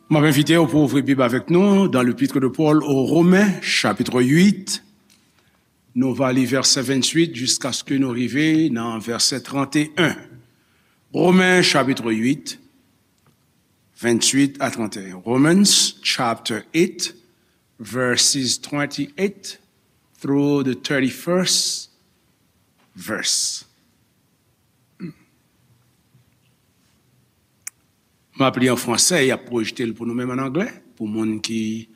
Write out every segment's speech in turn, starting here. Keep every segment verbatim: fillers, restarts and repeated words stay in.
M ap envite w pou ouvri Bib avèk nou dans l'épître de Paul aux Romains, chapitre huit. Nou va li vèsè venntuit jiskaske nou rive nan vèsè tranteyen. Romen, chapitre huit, venntuit a tranteyen. Romans, chapter eight, verses twenty-eight through the thirty-first verse. M ap li an fransè, y ap pwojte l pou nou menm an anglè, pou moun ki,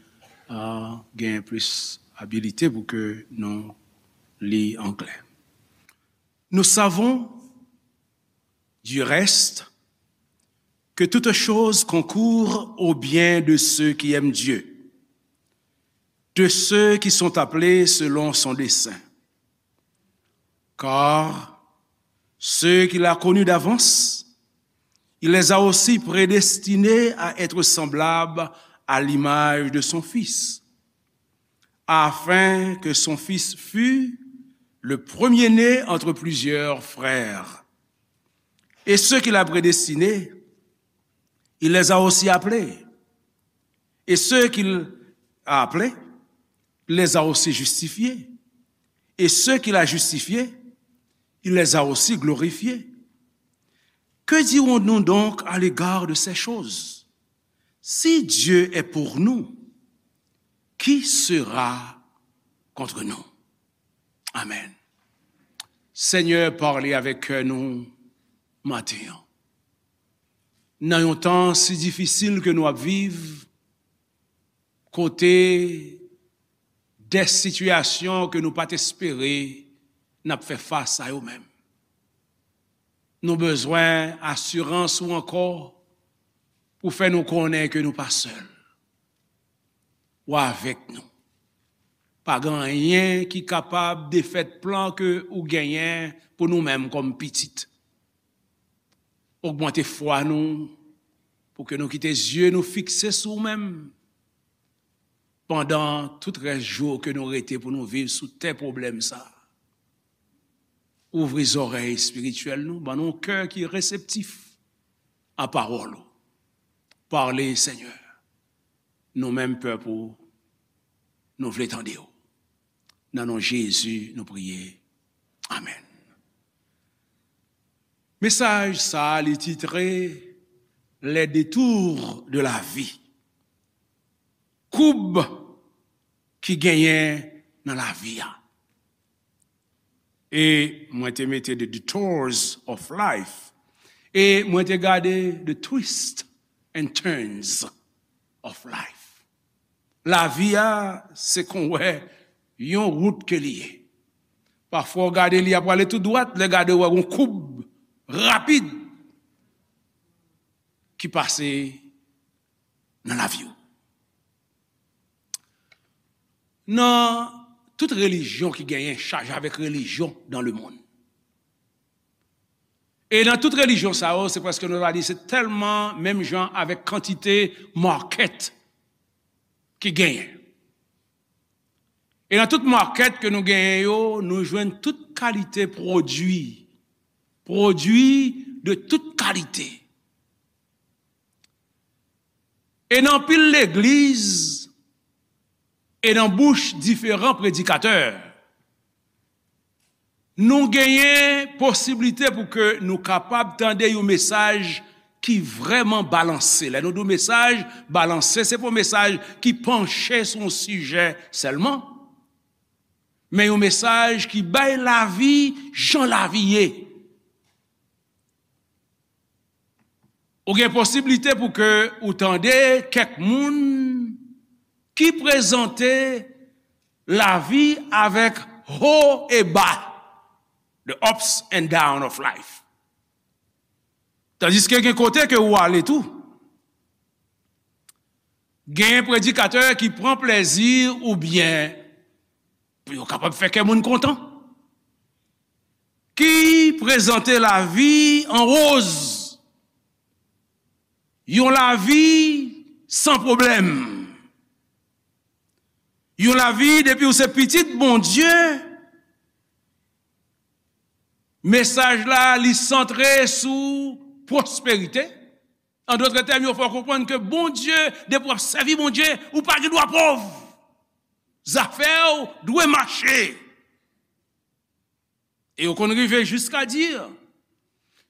ah, gen plis abilite pou ke nou li anglè. Nous savons, du reste, que toutes choses concourent au bien de ceux qui aiment Dieu, de ceux qui sont appelés selon son dessein. Car ceux qu'il a connus d'avance, il les a aussi prédestinés à être semblables à l'image de son Fils, afin que son Fils fût le premier-né entre plusieurs frères. Et ceux qu'il a prédestinés, il les a aussi appelés. Et ceux qu'il a appelés, il les a aussi justifiés. Et ceux qu'il a justifiés, il les a aussi glorifiés. Que dirons-nous donc à l'égard de ces choses? Si Dieu est pour nous, qui sera contre nous? Amen. Senyè, pale avèk kè nou maten an. Nan yon tan si difisil ke nou ap viv, kote de sitiyasyon ke nou pa t espere n ap fè fas a yo menm. Nou bezwen asirans ou ankò pou fè nou konnen ke nou pa sèl. Ou avèk nou. Pa gen anyen ki kapab defèt plan ke ou genyen pou nou menm kòm pitit. Ogmante fwa nou pou ke nou kite zye nou fikse sou ou menm pandan tout rès jou ke nou rete pou nou viv sou tè pwoblèm sa a. Ouvri zòrèy espirityèl nou, ban nou yon kè ki reseptif a pawòl ou. Pale, Senyè. Nou menm pèp ou, nou vle tande w. Nan non Jezi, nou priye. Amèn. Mesaj sa a, li titre Les détours de la vie. Koub ki genyen nan lavi a. E mwen te mete The Detours of Life. E mwen te gade The Twists and Turns of Life. Lavi a, se kon wè yon wout ke li ye. Pafwa, w gade li ap prale tou dwat, lè gade w wè yon koub rapid ki pase nan lavi w. Nan tout relijyon ki genyen, chaje avèk relijyon dans le monde. E nan tout relijyon sa yo, se prèske nou ta di se tèlman menm jan avèk kantite market ki genyen. E nan tout market ke nou genyen yo, nou jwenn tout kalite pwodui. Pwodui de tout kalite. E nan anpil legliz, e nan bouch diferan predikatè, nou genyen posiblite pou ke nou kapab tande yon mesaj ki vrèman balanse. Lè nou di yon mesaj balanse, se pa yon mesaj ki panche sou yon sijè sèlman, men yon mesaj ki bay lavi jan lavi ye. Ou gen posiblite pou ke ou tande kèk moun ki prezante lavi avèk ho e ba, the ups and down of life. Tandiske gen kote ke ou ale tou, gen predikatè ki pran plezi oubyen pou yo kapab fè kè moun kontan, ki prezante lavi an woz, yon lavi san pwoblèm, yon lavi depi w se pitit Bondye, mesaj la li santre sou pwosperite, An dòt tèm, yo fè w konprann ke Bondye, depi w ap sèvi Bondye, ou pa gen dwa pòv. Zafè w dwe mache. E yo konn rive jiska di,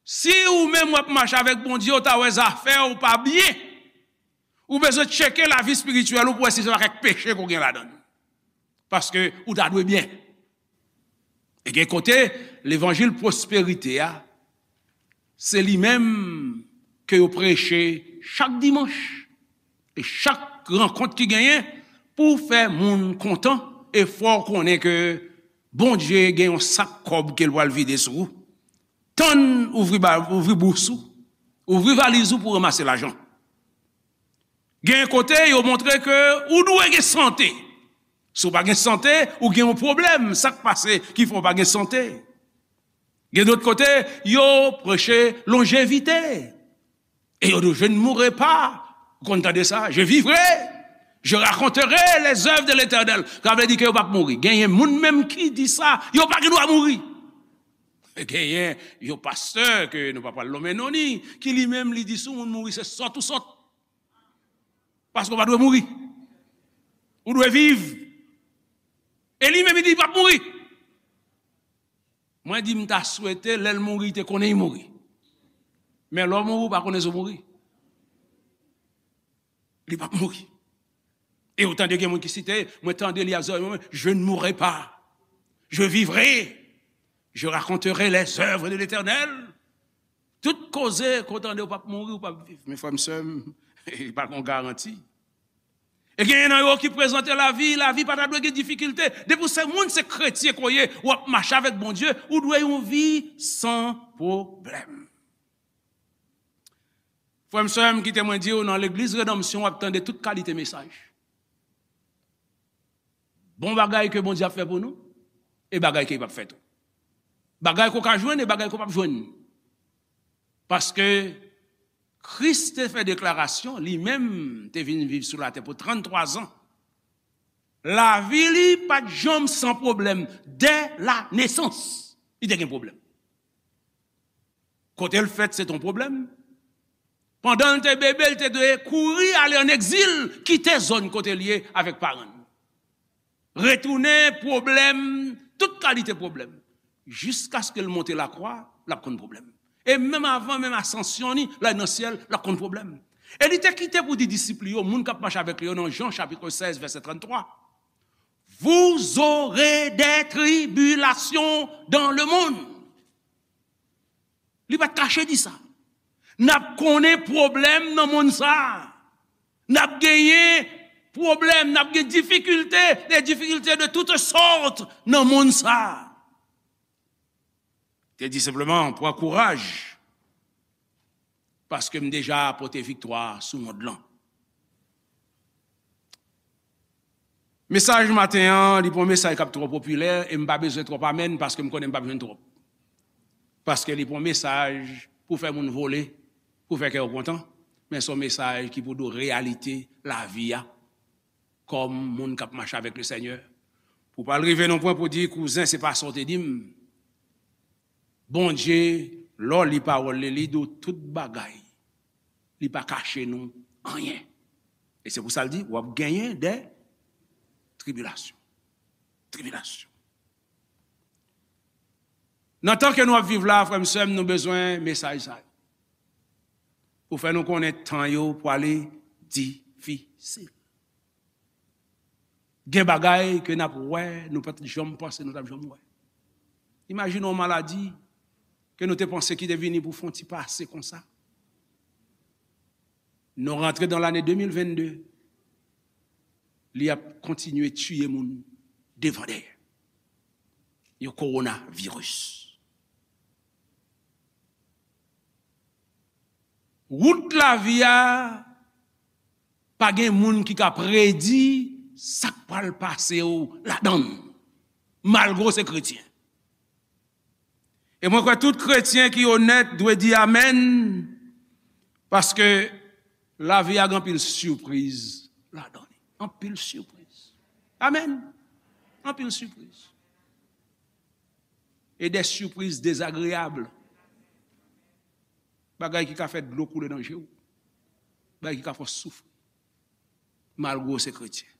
si ou menm w ap mache avèk Bondye, ou ta wè zafè w pa byen, ou bezwen tcheke lavi espirityèl ou pou wè si se pa kèk peche ke w gen ladan l. Paske ou ta dwe byen. E gen kote, levanjil pwosperite a, se li menm ke yo preche chak dimanch. E chak rankont ki genyen pou fè moun kontan, e fè w konnen ke Bondye gen yon sak kòb ke l pral vide sou ou. Tann ouvri, ba- ouvri bous ou, ouvri valiz ou pou ranmase lajan. Gen kote, yo montre ke ou dwe gen sante. Si w pa gen sante, ou gen yon pwoblèm. Sa k pase ki fè w pa gen sante? Gen dòt kote, yo preche lonjevite. Et je ne mourrai pas. Ou konn tande sa? Je vivrai. Je raconterai les œuvres de l'Éternel. Sa vle di ke yo p ap mouri. Genyen moun menm ki di sa, yo pa gen dwa mouri. Genyen yon pastè ke nou pa pral nonmen non ni, ki li menm li di si yon moun mouri se sòt ou sòt. Paske w pa dwe mouri. Ou dwe viv. E li menm li di li p ap mouri. Mwen di m ta swete lè l mouri, li te konnen li mouri. Men lè w mouri, ou pa konnen si w mouri. Li p ap mouri. E ou tande gen moun ki site, mwen tande li ap zòrèy mwen, je ne mourrai pas. Je vivrai. Je raconterai les œuvres de l'Éternel. Tout koze ke w tande ou p ap mouri, ou p ap viv. Men frè m, sè m, li pa gen yon garanti. E genyen nan yo ki prezante lavi, lavi pa ta dwe gen difikilte. Depi w se moun, se kretyen ke w ye, w ap mache avèk Bondye, ou dwe yon vi san pwoblèm. Frè m, sè m, kite mwen di w, nan legliz Redanmsyon, w ap tande tout kalite mesaj. Bon bagay ke Bondye ap fè pou nou, e bagay ke li p ap fè tou. Bagay ke w ka jwenn e bagay ke w p ap jwenn. Paske Kris te fè deklarasyon, li menm te vin viv sou latè pou tranntwa zan. Lavi li pa t janm san pwoblèm. Dè la nesans, li te gen pwoblèm. Kote l fèt, se t on pwoblèm. Pandan l te bebe, l te dwe kouri ale ann egzil, kite zòn kote l ye avèk paran l. Retounen, pwoblèm, tout kalite pwoblèm. Jiskaske l monte lakwa, l ap konn pwoblèm. E menm avan, menm asansyon ni, l al nan syèl, l ap konn pwoblèm. E li te kite pou di disip li yo, moun k ap mache avèk li yo nan Jan chapit sèz, vèsè tranntwa, Vous aurez des tribulations dans le monde. Li pa t kache di sa. N ap konnen pwoblèm nan monn sa a. N ap genyen pwoblèm, n ap gen difikilte, des difficultés de toutes sortes nan monn sa a. Te di senpleman, pran kouraj, paske m deja pote viktwa sou mond lan. Mesaj maten an, li pa yon mesaj k ap twò popilè, e m pa bezwen twòp amèn, paske m konnen m p ap jwenn twòp. Paske li pa yon mesaj pou fè moun vole, pou fè kè yo kontan, men se yon mesaj ki pou di w reyalite lavi a, kòm moun k ap mache avèk Lesenyè. Pou w pa al rive nan pwen pou di, kouzen, se pa sa w te di m. Bondye, lè w li pawòl li, li di w tout bagay. Li pa kache nou anyen. E se pou sa l di, w ap genyen de tribilasyon. Tribilasyon. Nan tan ke nou ap viv la, frè m, sè m, nou bezwen mesaj sa yo. Pou fè nou konnen tan yo pwale difisil. Gen bagay ke n ap wè, nou pa t janm panse nou t ap janm wè. Imajine yon maladi ke nou te panse ki te vini pou fè yon ti pase konsa. Nou rantre nan lane de mil vennde, li ap kontinye tiye moun devan dèyè. Yon kowonaviris. Wout lavi a, pa gen moun ki ka predi sa k pral pase w ladan l, malgre w se kretyen. E mwen kwè tout kretyen ki onèt dwe di amèn, paske lavi a gen anpil sipriz ladan li. Anpil sipriz. Amèn. Anpil sipriz. E de sipriz dezagreyab. Bagay ki ka fè dlo koule nan je w. Bagay ki ka fè w soufri, malgre w se kretyen.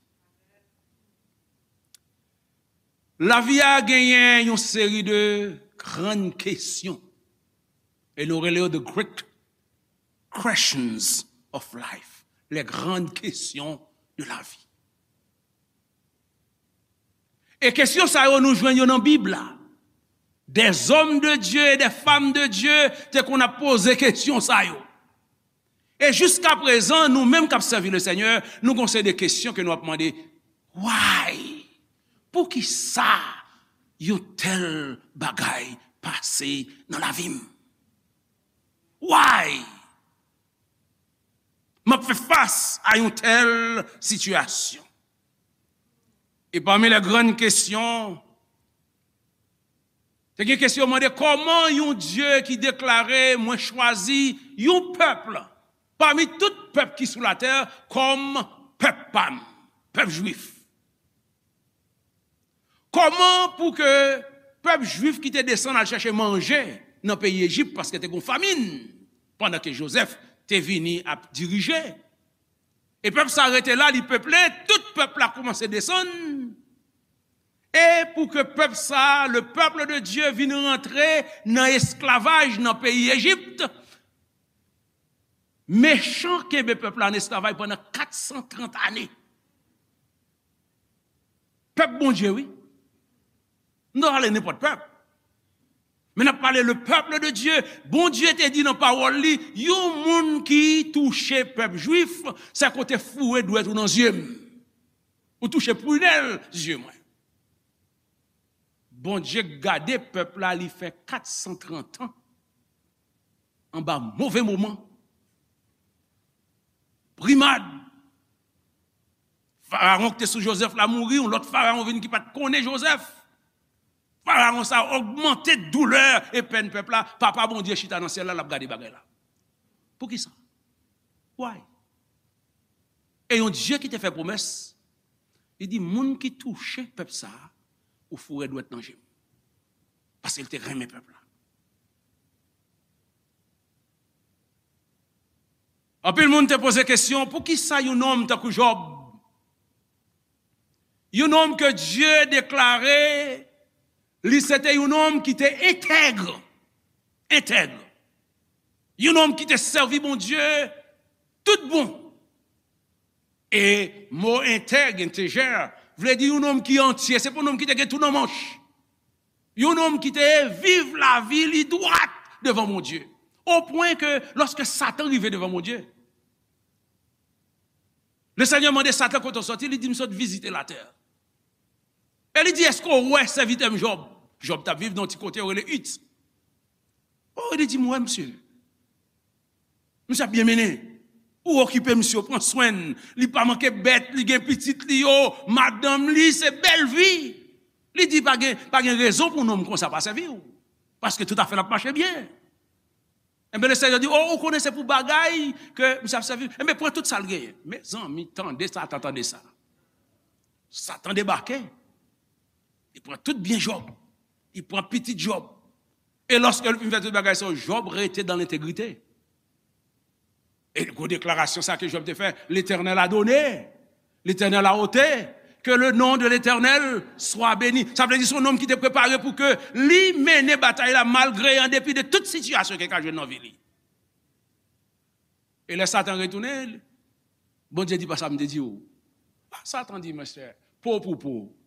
Lavi a genyen yon seri de grann kesyon. E nou rele yo the great questions of life. Les grandes questions de la vie. E kesyon sa yo, nou jwenn yo nan Bib la. Des hommes de Dieu et des femmes de Dieu te konn ap poze kesyon sa yo. E jiska prezan, nou menm k ap sèvi le Senyè, nou gon seri de kesyon ke nou ap mande, "Why? Poukisa yon tèl bagay pase nan lavi m? Why m ap fè fas a yon tèl sitiyasyon?" E pami les grandes questions, te gen kesyon mande, "Kòman yon Dye ki deklare, 'Mwen chwazi yon pèp pami tout pèp ki sou latè kòm pèp pa m, pèp jwif?'" Kòman pou ke pèp jwif ki te desann al chèche manje nan peyi Ejip, paske te gon famin, pandan ke Jozèf te vini ap dirije, e pèp sa rete la, li peple, tout pèp la kòmanse desann, e pou ke pèp sa, le peuple de Dieu, vin rantre nan esklavaj nan peyi Ejip, mechan kenbe pèp la an esklavaj pandan kat san trant ane. Pèp Bondye, wi. Nou ta pale nenpòt pèp. Men n ap pale le peuple de Dieu. Bondye te di nan pawòl li, yon moun ki touche pèp jwif, se kote foure dwèt ou nan zye m. Ou touche pwinèl zye mwen. Bondye gade pèp la, li fè kat san trant an anba move moman. Brimad. Farawon ki te sou Jozèf la mouri, yon lòt farawon vin ki pa t konnen Jozèf. Farawon sa ogmante doulè e pèn pèp la. Papa Bondye chita nan syèl la, l ap gade bagay la. Poukisa? Why? E yon Dye ki te fè pwomès, li di, "Moun ki touche pèp sa a, ou foure dwèt nan je m." Paske l te renmen pèp la. Anpil moun te poze kesyon, poukisa yon nonm tankou Jòb, yon nonm ke Dye deklare li se te yon nonm ki te entèg, entèg, yon nonm ki te sèvi Bondye tout bon. E mo entèg, entegè, vle di yon nonm ki antye, se pa yon nonm ki te gen tou nan manch. Yon nonm ki te viv lavi li dwat devan Bondye. O pwen ke lòske Satan rive devan Bondye, Lesenyè mande Satan kote w sòti, li di, "M sot vizite latè." E li di, "Èske w wè sèvitè m Jòb?" Jòb t ap viv nan yon ti kote yo rele It. O, li di, "M wè misye. Misye ap byen mennen. Ou okipe misye, ou pran swen l. Li pa manke bèt, li gen pitit li yo, madanm li, se bèl vi." Li di, "Pa gen, pa gen rezon pou yon nonm konsa pa sèvi w. Paske tout afè l ap mache byen." Enben, Lesenyè di, "O, ou konnen se pou bagay ke misye ap sèvi. Enben, pran tout sa l genyen." Mezanmi, tande Satan, tande sa. Satan debake. Li pran tout byen Jòb. Li pran pitit Jòb. E lòske l fin fè tout bagay sa yo, Jòb rete dan lentegrite. E gwo deklarasyon sa ke Jòb te fè, L'Éternel a donné, l'Éternel a ôté, que le nom de l'Éternel soit béni. Sa vle di se yon nonm ki te prepare pou ke li mennen batay la malgre, an depi de tout sitiyasyon ke l ka jwenn nan vi li. E lè Satan retounen, Bondye di, "Pa sa m te di w." Satan di, "Monchè, po pou po."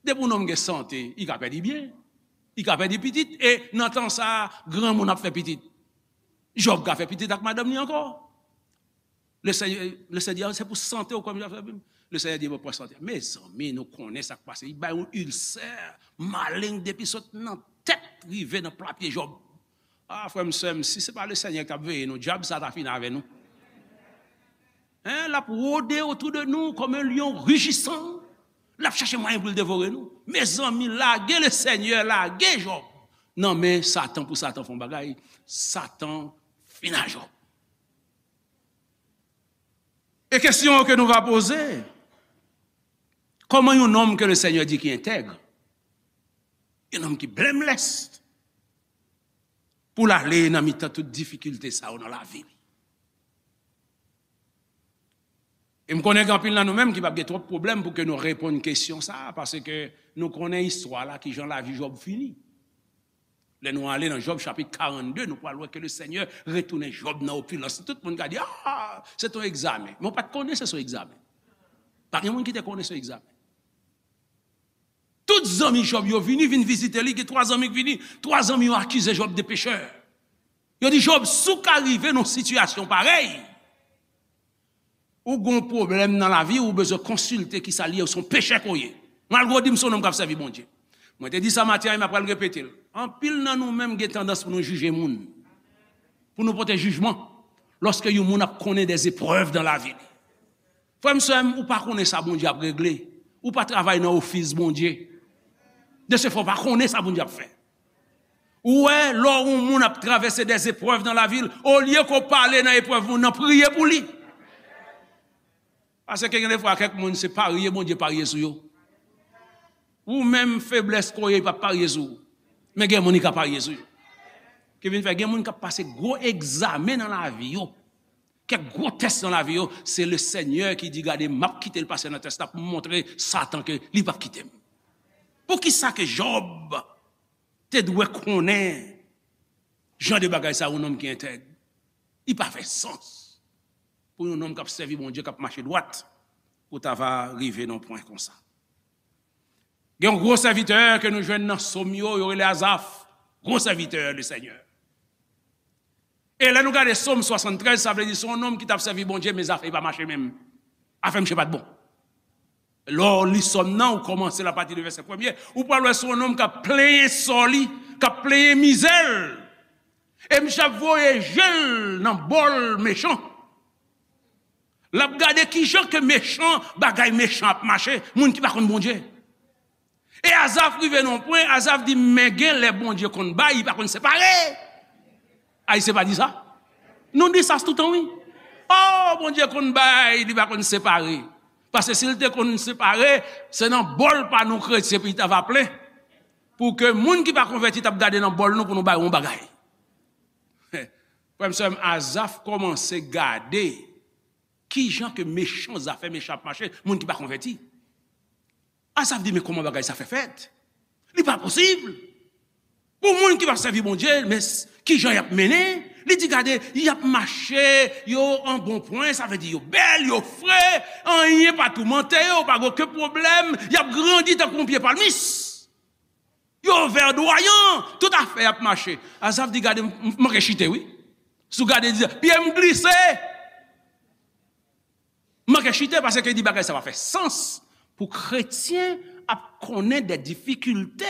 Depi yon nonm gen sante, li ka pèdi byen, li ka pèdi pitit, e nan tan sa a, granmoun ap fè pitit. Jòb ka fè pitit ak madanm li ankò. Lesenyè, Lesenyè di, "A, se pou sante w kòm jan fè pitit." Lesenyè di, "Bon, pran sante." Mezanmi, nou konnen sa k pase. Li bay yon ilsè malen depi sot nan tèt rive nan pla pye Jòb. A, frè m, sè m, si se pa Lesenyè ki t ap veye nou, dyab sa ta fini avè nou. Hein, l ap wode otou de nou kòm yon lyon rijisan. L ap chèche mwayen pou l devore nou. Mezanmi, lage Lesenyè, lage Jòb nan men Satan pou Satan fè yon bagay. Satan fini ak Jòb. E kesyon ke nou va poze, kòman yon nonm ke Lesenyè di ki entèg, yon nonm ki blameless, pou l ale nan mitan tout difikilte sa yo nan lavi li? E m konnen gen anpil nan nou menm ki p ap gen twòp pwoblèm pou ke nou reponn kesyon sa a, paske nou konnen istwa la, kijan lavi Jòb fini. Lè nou ale nan Jòb chapit karannde, nou pral wè ke Lesenyè retounen Jòb nan opilans. Tout moun ka di, "Ah, se t on egzamen." Men w pa t konnen se t on egzamen. Pa gen moun ki te konnen se t on egzamen. Tout zanmi Jòb yo vini, vin vizite li. Gen twa zanmi ki vini. Twa zanmi yo akize Jòb de pechè. Yo di, "Jòb, si w ka rive nan yon sitiyasyon parèy, ou gen yon pwoblèm nan lavi, ou bezwen konsilte kisa l ye, ou se yon pechè ke w ye." Malgre w di m se yon nonm k ap sèvi Bondye. Mwen te di sa maten an, e m ap pral repete l. Anpil nan nou menm gen tandans pou nou jije moun, pou nou pote jijman, lòske yon moun ap konnen dè eprèv nan lavi li. Frè m, sè m, ou pa konnen sa Bondye ap regle. Ou pa travay nan ofis Bondye. De se fè, ou pa konnen sa Bondye ap fè. Ou wè, lè yon moun ap travèse dè eprèv nan lavi l, olye ke w pale nan eprèv moun nan, priye pou li. Paske gen defwa, kèk moun, se parye Bondye parye sou yo. Ou menm, feblès ke w ye, li p ap parye sou ou. Men gen moun, li ka parye sou yo. Ki vin fè, gen moun k ap pase gwo egzamen nan lavi yo. Kèk gwo tès nan lavi yo, se Lesenyè ki di, "Gade, m ap kite l pase nan tès la pou m montre Satan ke li p ap kite m." Poukisa ke Jòb te dwe konnen jan de bagay sa, yon nonm ki entèg? Li pa fè sans pou yon nonm k ap sèvi Bondye, k ap mache dwat, pou ta va rive nan pwen konsa. Gen yon gwo sèvitè ke nou jwenn nan Sòm yo, yo rele Azaf, gwo sèvitè Lesenyè. E lè nou gade Sòm swasanntrèz, sa vle di se yon nonm ki t ap sèvi Bondye, men zafè pa mache menm. Afè misye pa t bon. Lè w li Sòm nan, ou kòmanse l apati de vèsè premye, ou pral wè se yon nonm k ap plenyen sò li, k ap plenyen mizè l. E misye ap voye je l nan bòl mechan. L ap gade kijan ke mechan, bagay mechan ap mache, moun ki pa konn Bondye. E Azaf rive nan yon pwen, Azaf di, "Men gen lè Bondye konn bay, li pa konn separe." Ayisyen pa di sa? Nou di sa toutan, wi. "Oh, Bondye konn bay, li pa konn separe." Paske si l te konn separe, se nan bòl pa nou kretyen pou li ta va plen. Pou ke moun ki pa konvèti t ap gade nan bòl nou pou nou bay yon bagay. Frè m, sè m, Azaf kòmanse gade kijan ke mechan, zafè mechan ap mache, moun ki pa konvèti. Azaf di, "Men kòman bagay sa fè fèt? Li pa posib. Pou moun ki p ap sèvi Bondye, men s-, kijan y ap mennen?" Li di, "Gade, y ap mache, yo an bon pwen, sa vle di yo bèl, yo fre, anyen pa toumante yo, pa gen okenn pwoblèm, y ap grandi tankou yon pye palmis. Yo vèdwayan, tout afè y ap mache." Azaf di, "Gade, m, m manke chite, wi. Si w gade, di, pye m glise. M manke chite, paske di bagay sa pa fè sans pou kretyen ap konnen de difikilte,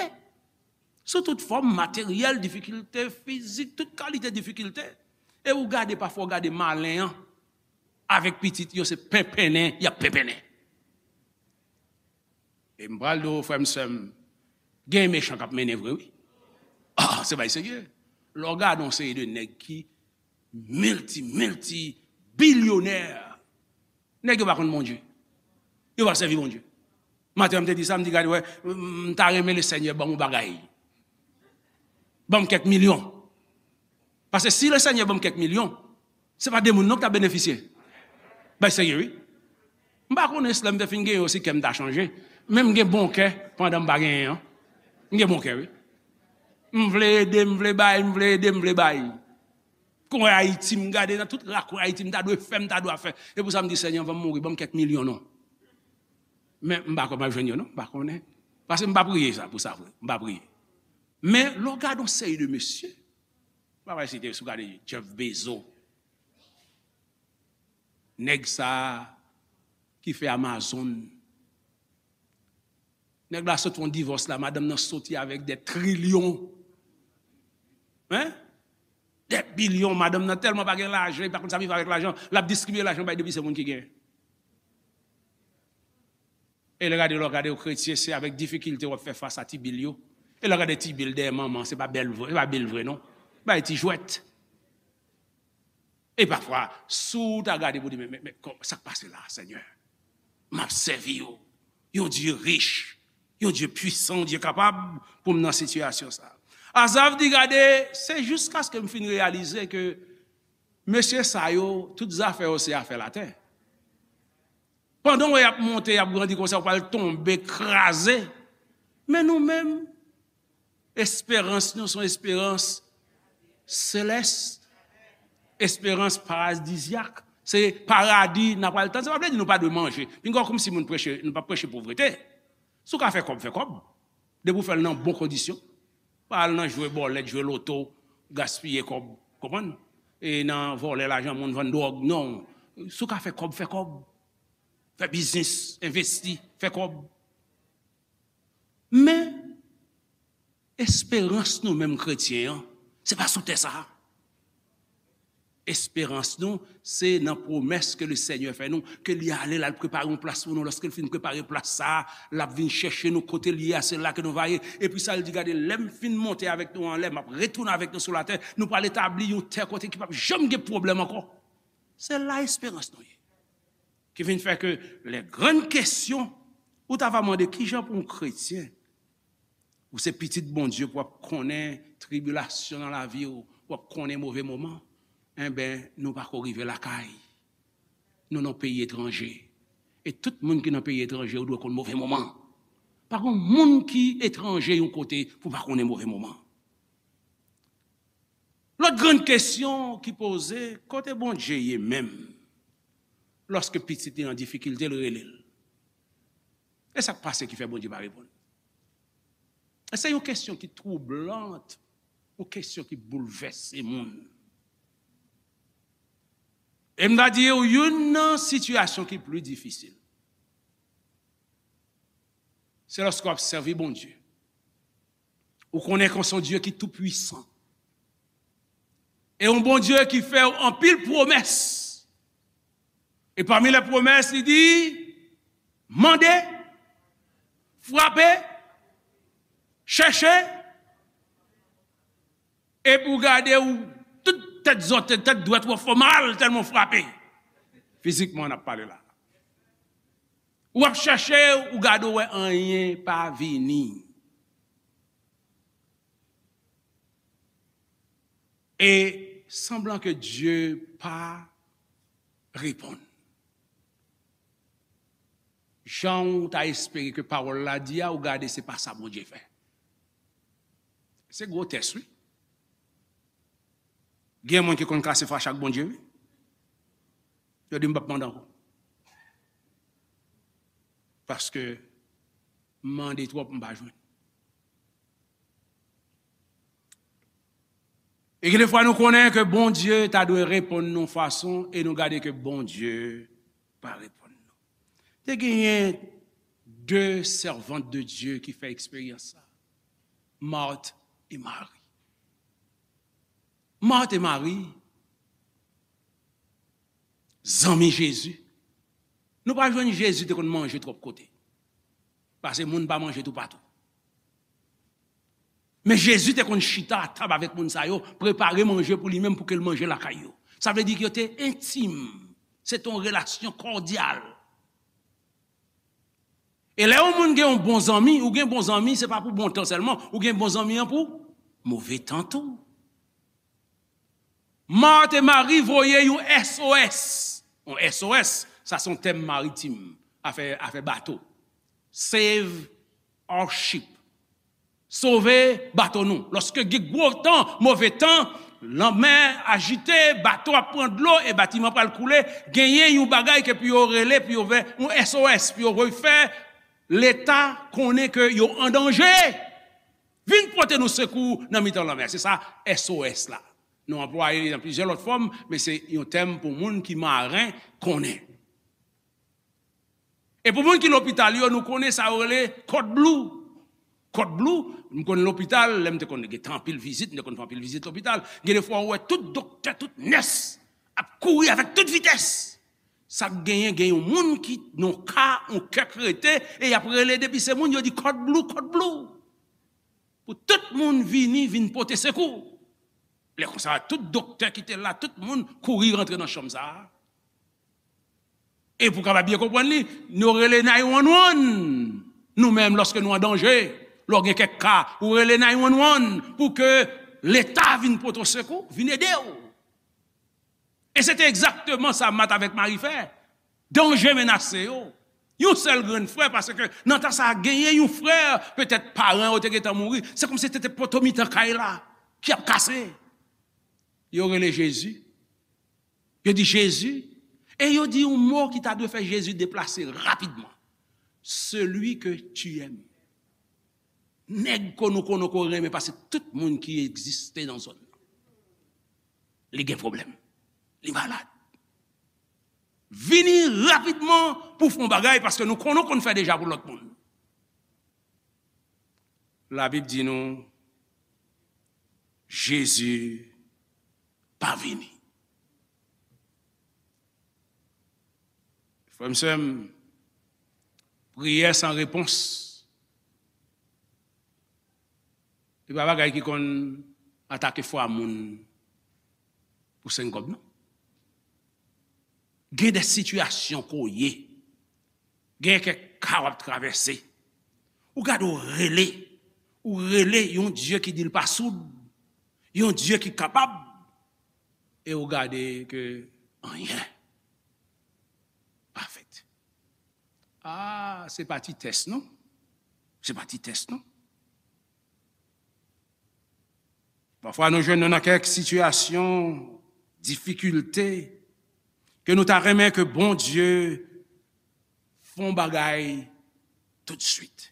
sou tout fòm, materyèl, difikilte fizik, tout kalite difikilte. E ou gade, pafwa ou gade malen an, avèk pitit yo, se penpennen, y ap penpennen." E m pral di w, frè m, sè m, gen mechan k ap mennen vre, wi. Ah, se bay serye. Lè w gade yon seri de nèg ki milti, milti bilyonè, nèg yo pa konn Bondye. Yo pa sèvi Bondye. Maten an, m te di sa, m di, "Gade, wè, m ta renmen Lesenyè ban m yon bagay. Ban m kèk milyon." Paske si Lesenyè ban m kèk milyon, se pa de moun non k ta benefisye. Bay serye, wi. M pa konnen si lè m te fin genyen yo, si kè m ta chanje. Men m gen bon kè pandan m pa genyen an. M gen bon kè, wi. M vle ede, m vle bay, m vle ede, m vle bay. Kwen Ayiti, m gade nan tout rakwen Ayiti, m ta dwe fè, m ta dwe fè. E pou sa m di, "Senyè, anvan m mouri, ban m kèk milyon non." Men m pa kwè m ap jwenn yo non, m pa konnen. Paske m pa priye sa, pou sa vre, m pa priye. Men lè w gade yon seri de mesye, m pa pral site, si w gade Jeff Bezos, nèg sa a ki fè Amazon, nèg la sot fè yon divòs la, madanm nan soti avèk dè trilyon. Hein? Dè bilyon, madanm nan tèlman pa gen lajan, li pa konn sa pou l fè avèk lajan, l ap distribiye lajan bay depi se moun ki genyen. E lè gade, lè w gade w kretyen, se avèk difikilte w ap fè fas a ti bil yo. E lè w gade ti bil dèyè manman, se pa bèl vre, se pa bil vre non. Bay ti jwèt. E pafwa, si w ta gade pou di, "Men, men, men, kò-, sa k pase la, Senyè? M ap sèvi w, yon Dye rich, yon Dye pwisan, yon Dye kapab, pou m nan sitiyasyon sa a." Azav di, "Gade, se jiskaske m fin reyalize ke mesye sa yo, tout zafè yo se afè latè." Pandan w wè y ap monte, y ap grandi konsa, w pral tonbe, kraze. Men nou menm, esperans nou se yon esperans selès, esperans paradizyak. Se paradi n ap pral tann. Sa pa vle di nou pa dwe manje. Pinga w kòmsi moun preche, nou pa preche povrete. Si w ka fè kòb, fè kòb. Depi w fè l nan bon kondisyon. Pa al nan jwe bòlèt, jwe loto, gaspiye kòb, konprann? E nan vòlè lajan moun, vann dwòg, non. Si w ka fè kòb, fè kòb. Fè biznis, envesti, fè kòb. Men, esperans nou menm kretyen an, se pa sou tè sa a. Esperans nou, se nan pwomès ke le Senyè fè nou, ke li ale, l al prepare yon plas pou nou. Lòske l fin prepare plas sa a, l ap vin chèche nou kote l ye a, se la ke nou va ye. Epi sa, l di, gade, lè m fin monte avèk nou anlè, m ap retounen avèk nou sou latè, nou pral etabli yon tè kote ki p ap janm gen pwoblèm ankò. Se la esperans nou ye. Ki vin fè ke lè grann kesyon, ou ta va mande, kijan pou yon kretyen, ou se pitit Bondye, pou w ap konnen tribilasyon nan lavi w, pou w ap konnen move moman, enben, nou pa ko rive lakay. Nou nan peyi etranje. E tout moun ki nan peyi etranje, ou dwe konn move moman. Pa gen moun ki etranje yon kote pou pa konnen move moman. Lòt grann kesyon ki poze, kote Bondye ye menm? Lòske pitit li an difikilte, l rele l. E sa k pase ki fè Bondye pa reponn? E se yon kesyon ki twoublant, yon kesyon ki boulvèse moun. E m ta di w, youn nan sitiyasyon ki pli difisil, se lòske w ap sèvi Bondye. Ou konnen ke w se yon Dye ki toupwisan. E yon Bondye ki fè w anpil pwomès. E pami lè pwomès, li di, mande, frape, chèche, epi w gade w, tout tèt zòt, tèt dwèt ou ap fè w mal tèlman w frape. Fizikman, n ap pale la. Ou ap chèche, ou gade, w wè anyen pa vini. E sanblan ke Dye pa reponn. Jan w ta espere ke pawòl la di a, ou gade se pa sa Bondye fè. Se gwo tès, wi. Gen moun ki konn kase fache ak Bondye, wi. Yo di, "M p ap mande ankò. Paske m mande twòp, m pa jwenn." E gen de fwa nou konnen ke Bondye ta dwe reponn nou fason e nou gade ke Bondye pa reponn nou. Te genyen de sèvant de Dye ki fè eksperyans sa. Marthe e Marie. Marthe e Marie, zanmi Jezi. Nou pa jwenn Jezi te konn manje twòp kote. Paske moun pa manje toupatou. Men Jezi te konn chita a tab avèk moun sa yo, prepare manje pou li menm pou ke l manje lakay yo. Sa vle di ke yo te entim. Se te yon relasyon kòdyal. E lè yon moun gen yon bon zanmi, ou gen bon zanmi, se pa pou bon tan sèlman, ou gen bon zanmi an pou move tan tou. Marthe e Marie voye yon S O S. Yon S O S, sa se yon tèm maritim, afè, afè bato. Save our ship. Sove bato nou. Lòske gen gwo tan, move tan, lanmè ajite, bato ap pran dlo e batiman pral koule, genyen yon bagay ke pou yo rele, pou yo fè yon S O S, pou yo voye fè Leta konnen ke yo an danje. Vin pote nou sekou nan mitan lanmè. Se sa S O S la. Nou anplwaye li nan plizyè lòt fòm, men se yon tèm pou moun ki maren konnen. E pou moun ki lopital yo, nou konnen sa yo rele code blue. Code blue, m konn lopital, lè m te konn gen tan anpil vizit, m te konn fè anpil vizit lopital. Gen de fwa ou wè tout doktè, tout nès ap kouri avèk tout vitès. Sa k genyen, gen yon moun ki nan ka, yon kè k rete, e y ap rele depi se moun, yo di code blue, code blue. Pou tout moun vini, vin pote sekou. Lè konsa, tout doktè ki te la, tout moun kouri rantre nan chanm sa a. E pou kapab byen konprann li, nou rele nine one one. Nou menm, lòske nou an danje, lè w gen kèk ka, ou rele nine one one pou ke Leta vin pote w sekou, vin ede w. E se te egzakteman sa Mat avèk Mari fè. danje menase yo. Yon sèl grenn frè, paske nan tan sa a genyen yon frè, petèt paran yo te gentan mouri. Se kòmsi se te poto mitan kay la ki ap kase. Yo rele Jezi. Yo di, Jezi. E yo di yon mo ki ta dwe fè Jezi deplase rapidman. Celui que tu aimes. Nèg ke nou konnen ke w renmen pase tout moun ki egziste nan zòn nan. Li gen pwoblèm. Li malad. Vini rapidman pou w fè yon bagay, paske nou konnen w konn fè deja pou lòt moun. Labib di nou, Jezi pa vini. Frè m, sè m, priyè san repons, e pa bagay ki konn atake fwa moun pou senk kòb, non. Gen de sitiyasyon ke w ye, gen kèk ka w ap travèse. Ou gade, w rele, ou rele yon Dye ki di l pa soud, yon Dye ki kapab, e w gade ke anyen pa fèt. Ah, se pa ti tès, non. Se pa ti tès, non. Pafwa, nou jwenn nou nan kèk sitiyasyon, difikilte, ke nou ta renmen ke Bondye fè yon bagay toutswit.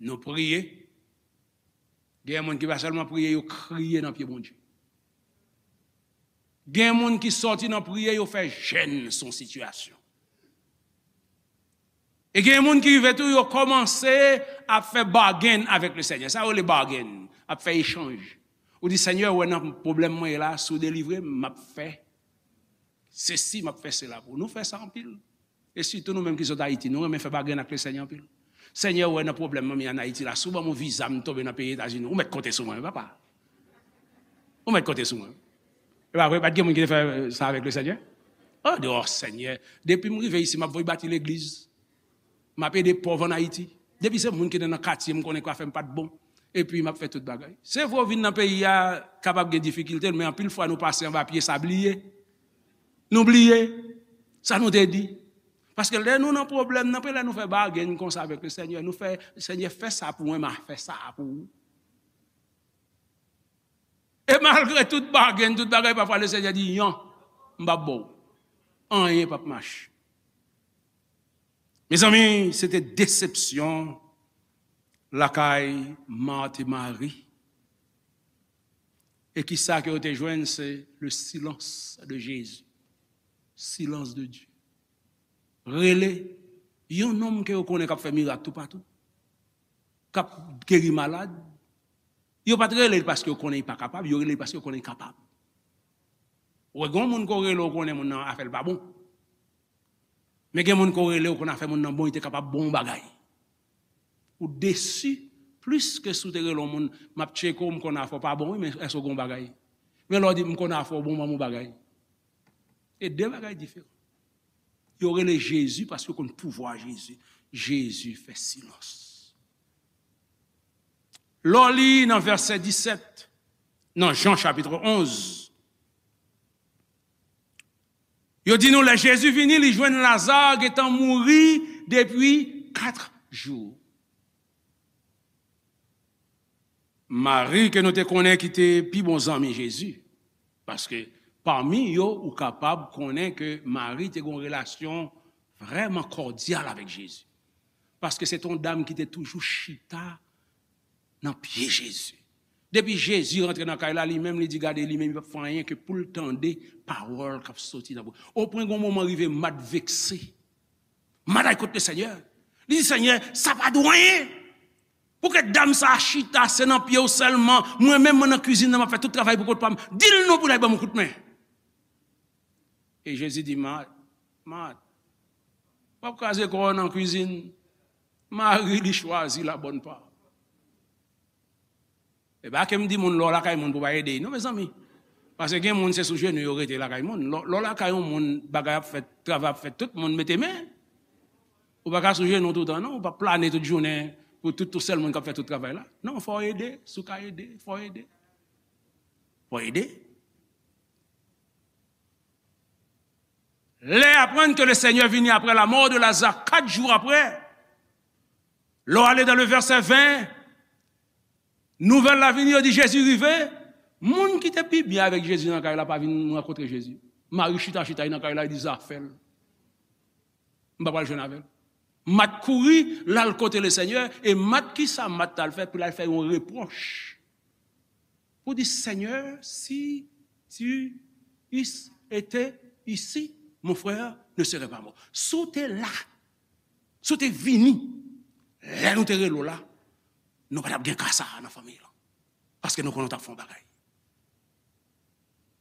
Nou priye. Gen moun ki pa sèlman priye, yo kriye nan pye Bondye. Gen moun ki sòti nan priye, yo fè jèn sou yon sitiyasyon. E gen moun ki rive tou, yo kòmanse ap fè bargain avèk le Senyè. Sa yo rele bargain, ap fè echanj. Ou di, Senyè, ou wè nan pwoblèm mwen ye la, si w delivre m, m ap fè sesi, m ap fè sela pou ou. Nou fè sa anpil. E sitou nou menm ki sot Ayiti, nou renmen fè bargain ak le Senyè anpil. Senyè, ou wè nan pwoblèm mwen ye ann Ayiti la, si w ban m yon viza, m tonbe nan peyi Etazini, ou mèt konte sou mwen, wi, papa. Ou mèt konte sou mwen. E pa vre, pa t gen moun ki te fè sa avèk le Senyè? Oh, di, oh, Senyè, depi m rive isi, m ap voye bati legliz. M ap ede pòv ann Ayiti. Depi se moun ki te nan katye m konnen k ap fè m pa t bon. Epi m ap fè tout bagay. Se vre, w vin nan peyi a, kapab gen difikilte, men anpil fwa nou pase anba pye sabliye. Nou bliye sa nou te di. Paske lè nou nan pwoblèm, nan lè nou fè bargain konsa avèk le Senyè, nou fè, Senyè, fè sa pou mwen, m a fè sa pou ou. E malgre tout bargain, tout bagay, pafwa le Senyè di, yon, m p ap ba w. Anyen p ap mache. Mezanmi, se te desepsyon lakay Mat e Mari. E kisa ke yo te jwenn? Se le silence de Jésus. Silence de Dieu. Rele yon nonm ke yo konnen k ap fè mirak toupatou, k ap geri malad. Yo pa t rele l paske yo konnen li pa kapab, yo rele l paske yo konnen li kapab. Ou wè, gen yon moun ke w rele, ou konnen moun nan afè l pa bon. Men gen moun ke w rele, ou konnen afè moun nan bon, li te kapab ba w yon bagay. Ou desi plis ke si w te rele yon moun, m ap tcheke w, m konnen afè w pa bon, wi, men èske w gen yon bagay? Men lè w di, m konnen afè w bon, ban m yon bagay. E de bagay diferan. Yo rele Jezi paske yo konn pouvwa Jezi. Jezi fè silans. Lè w li nan vèsè disèt, nan Jan chapit onz, yo di nou, lè Jezi vini, li jwenn Laza gentan mouri depi kat jou. Mari, ke nou te konnen ki te pi bon zanmi Jezi, paske pami yo, ou kapab konnen ke Mari te gen yon relasyon vrèman kòdyal avèk Jezi. Paske se te yon dam ki te toujou chita nan pye Jezi. Depi Jezi rantre nan kay la, li menm, li di, gade, li menm, li p ap fè anyen ke pou l tande pawòl k ap soti nan bouch. Opwen gen yon moman rive, Mat vekse. Mat al kot le Senyè. Li di, Senyè, sa pa dwe anyen. Pouki dam sa a chita, se nan pye w sèlman? Mwen menm, mwen nan kwizin nan, m ap fè tout travay pou kont pa m. Di l non pou l al ban m yon kout men. E Jezi di, Mat, Mat, w ap kraze kò w nan kwizin. Mari, li chwazi la bòn pa. E pa ke m di moun, lè w lakay moun pou w pa ede l, non, mezanmi. Paske gen moun, se sou jenou yo rete lakay moun. Lè, lè w lakay yon moun, bagay ap fèt, travay ap fèt, tout moun mete men. Ou pa ka sou jenou toutan, non. Ou pa plane tout jounen pou tout, tout sèl moun k ap fè tout travay la. Non, fò w ede. Si w ka ede, fò w ede. Fò w ede. Lè aprann ke le Senyè vini apre la mò de Laza, kat jou apre, lè w ale dan le vèsè ven, nouvèl la vini, yo di Jezi rive. Moun ki te pi byen avèk Jezi nan kay la pa vin rankontre Jezi. Mari chita, chita, li nan kay la, li di, "Zafè l. M pa pral jwenn avè l." Mat kouri, l al kote le Senyè, e Mat, ki sa Mat t al fè? Pou l al fè yon repwòch. Pou di, "Seigneur, si tu eusses été ici, mon frère ne serait pas mort." Si w te la, si w te vini, lè nou te rele w la, nou pa t ap gen ka sa a nan fanmi lan. Paske nou konnen w t ap fè yon bagay.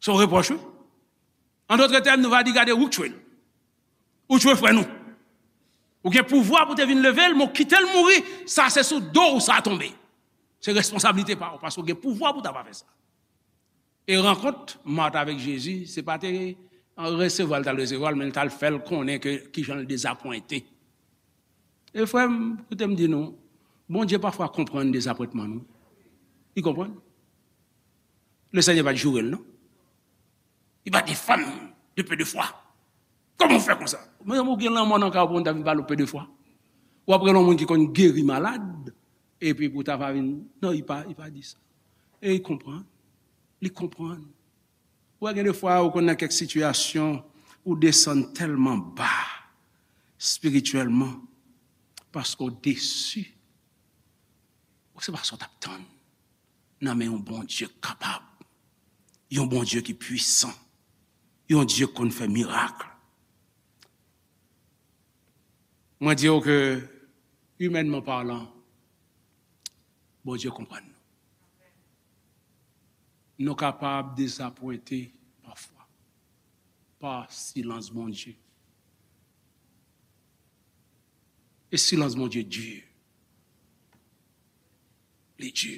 Se yon repwòch, wi. An dòt tèm, nou va di, "Gade, ou k tchwe l. Ou tchwe frè nou. Ou gen pouvwa pou te vin leve l, men w kite l mouri, sa se sou do w sa tonbe. Se responsablite pa w, paske w gen pouvwa pou w ta pa fè sa." E rankont Mat avèk Jezi, se pa te resevwa l t al resevwa l, men l t al fè l konnen ke kijan l dezapwente. E frè m, koute m di nou, Bondye pafwa konprann dezapwentman nou. Li konprann. Le Senyè pa t joure l, non. Li pa defann de peu de foi. Kòman w fè konsa? Mezanmi, ou gen lanmò nan kay ou pou moun ta vin pale w peu de foi? W ap rele yon moun ki konn geri malad, epi pou ta va vin, non, li pa, li pa di sa. E li konprann. Li konprann. Ou wè, gen de fwa, ou konn nan kèk sitiyasyon, ou desann tèlman ba, espirityèlman, paske w desi. Ou se pa sa w t ap tann nan men yon Bondye k kapab, yon Bondye ki pwisan, yon Dye k konn fè mirak. Mwen di w ke, imènman palan, Bondye konprann nou. Nou kapab dezapwente pafwa pa silans Bondye. E silans Bondye di. Li di.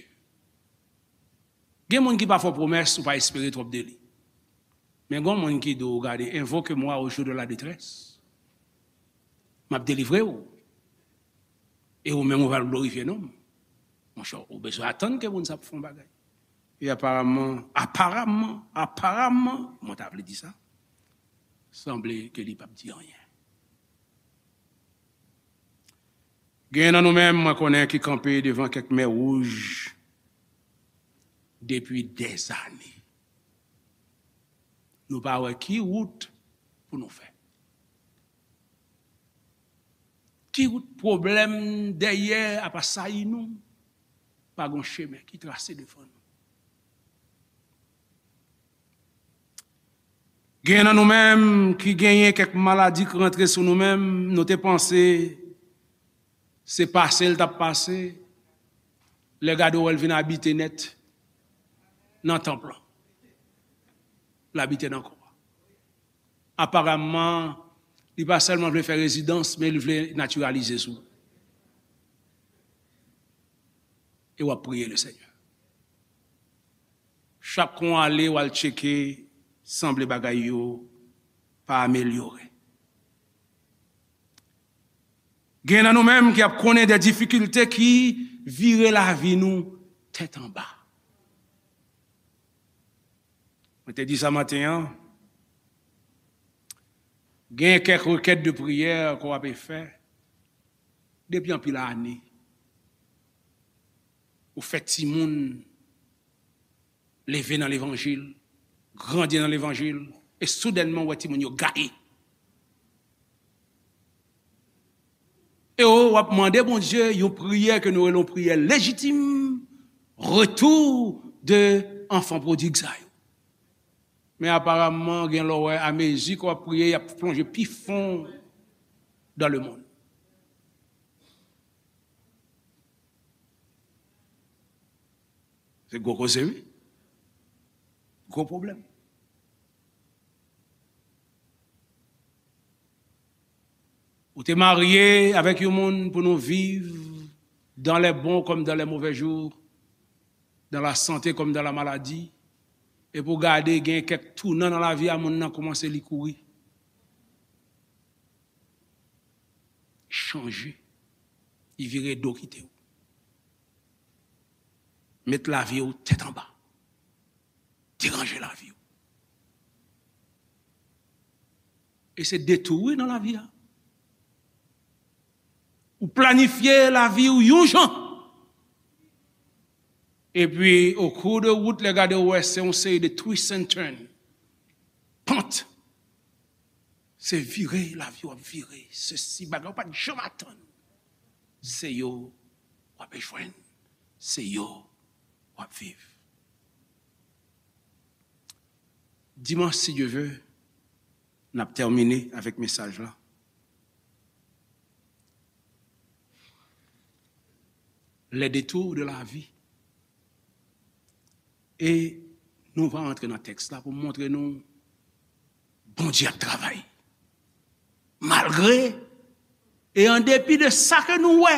Gen moun ki pa fè w pwomès, ou pa espere twòp de li. Men gen moun ki di w, "Gade, invoque-moi au jour de la détresse. M ap delivre w. E ou menm, ou pral glorifye non m." Monchè, ou bezwen atann ke moun sa ap fè yon bagay. E aparamman, aparamman, aparamman, mwen ta vle di sa, sanble ke li p ap di anyen. Gen nan nou menm, mwen konnen, ki kanpe devan kèk mè wouj depi dèzane. Nou pa wè ki wout pou nou fè. Ki wout pwoblèm dèyè ap asayi nou, pa gon chemen ki trase devan nou. Gen nan nou menm ki genyen kèk maladi k rantre sou nou menm, nou te panse se pase l t ap pase, lè gade w wè l vin abite nèt nan tanp lan. L abite nan kò a. Aparamman, li pa sèlman vle fè rezidans, men li vle natiralize sou. E w ap priye le Senyè. Chak kon ale, w al tcheke, sanble bagay yo pa amelyore. Gen nan nou menm ki ap konnen de difikilte ki vire lavi nou tèt anba. Mwen te di sa maten an, gen kèk rekèt de priyè ke w ape fè depi anpil ane. Ou fè timoun leve nan levanjil, grandi nan levanjil, e soudènman, ou wè timoun yo gaye. E w ap mande Bondye yon priyè ke nou rele yon priyè lejitim, retour de enfant prodigue sa yo. Men aparamman, gen lè w wè, amezi ke w ap priye, y ap plonje pi fon dans le monde. Se gwo koze, wi. Gwo pwoblèm. Ou te marye avèk yon moun pou nou viv dans les bons comme dans les mauvais jours, dans la santé comme dans la maladie, epi w gade gen kèk tounan nan lavi a moun nan, kòmanse li kouri. Chanje. Li vire do kite w. Met lavi w tèt anba. Deranje lavi w. E se detou wi nan lavi a. Ou planifye lavi w yon jan. Epi, o kou de wout, lè gade w wè se yon seri de twist and turn. Pant. Se vire, lavi w ap vire. Sesi, bagay ou pa t janm atann. Se yo w ap jwenn. Se yo w ap viv. Dimanch, si Dye ve, n ap tèmine avèk mesaj la. Les détours de la vie. E nou va antre nan tèks la pou montre nou Bondye ap travay. Malgre e an depi de sa ke nou wè,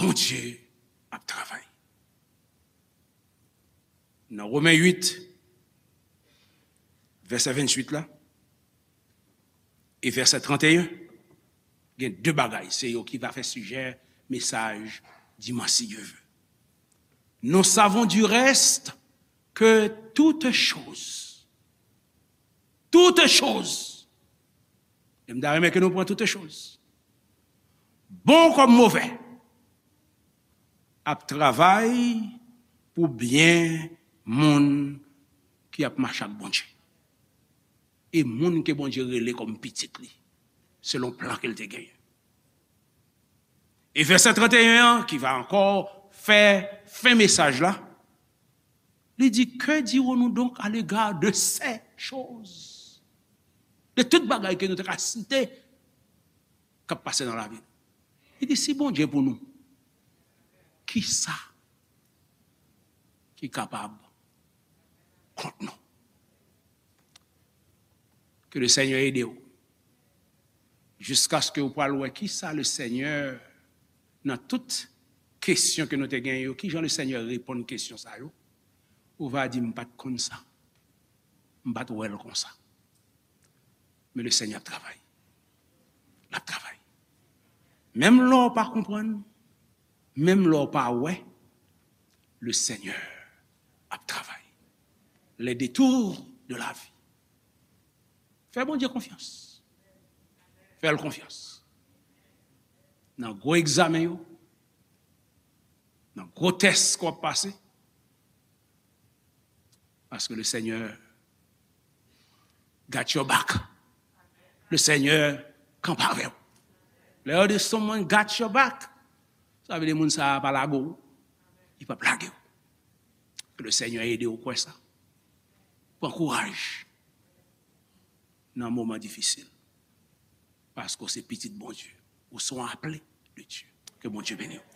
Bondye ap travay. Nan Women uit, vèsè venntuit la, e vèsè tranteyen, gen de bagay, se yo ki va fè sijè mesaj dimanch, si Dye ve. Nous savons du reste que toutes choses, toutes choses, e m ta renmen ke nou pran toutes choses, bon kòm movè, ap travay pou byen moun ki ap mache ak Bondye. E moun ke Bondye rele kòm pitit li, selon plan ke l te genyen. E vèsè tranteyen an, ki va ankò fè fen mesaj la, li di, que dirons-nous donc à l'égard de ces choses? De tout bagay ke nou te ka site k ap pase nan lavi nou. Li di, si Bondye pou nou, kisa ki kapab kont nou? Ke le Senyè ede w. Jiskaske ou pral wè kisa le Senyè, nan tout kesyon ke nou te gen yo, kijan le Senyè reponn kesyon sa yo, ou va di, m pa t konn sa. M pa t wè l konsa. Men le Senyè ap travay. L ap travay. Menm lè w pa konprann, menm lè w pa wè, le Senyè ap travay. Les détours de la vie. Fè Bondye konfyans. Fè l konfyans. Nan gwo egzamen yo, nan gwo tès ke w ap pase, paske le Senyè got your back. Le Senyè kanpe avè w. Lè yo di someone got your back, sa vle di moun sa a pa lage w. Li p ap lage w. Ke le Senyè ede w kwè sa. Pran kouraj nan moman difisil. Paske w se pitit Bondye. Ou se yon aple de Dye. Ke Bondye beni w.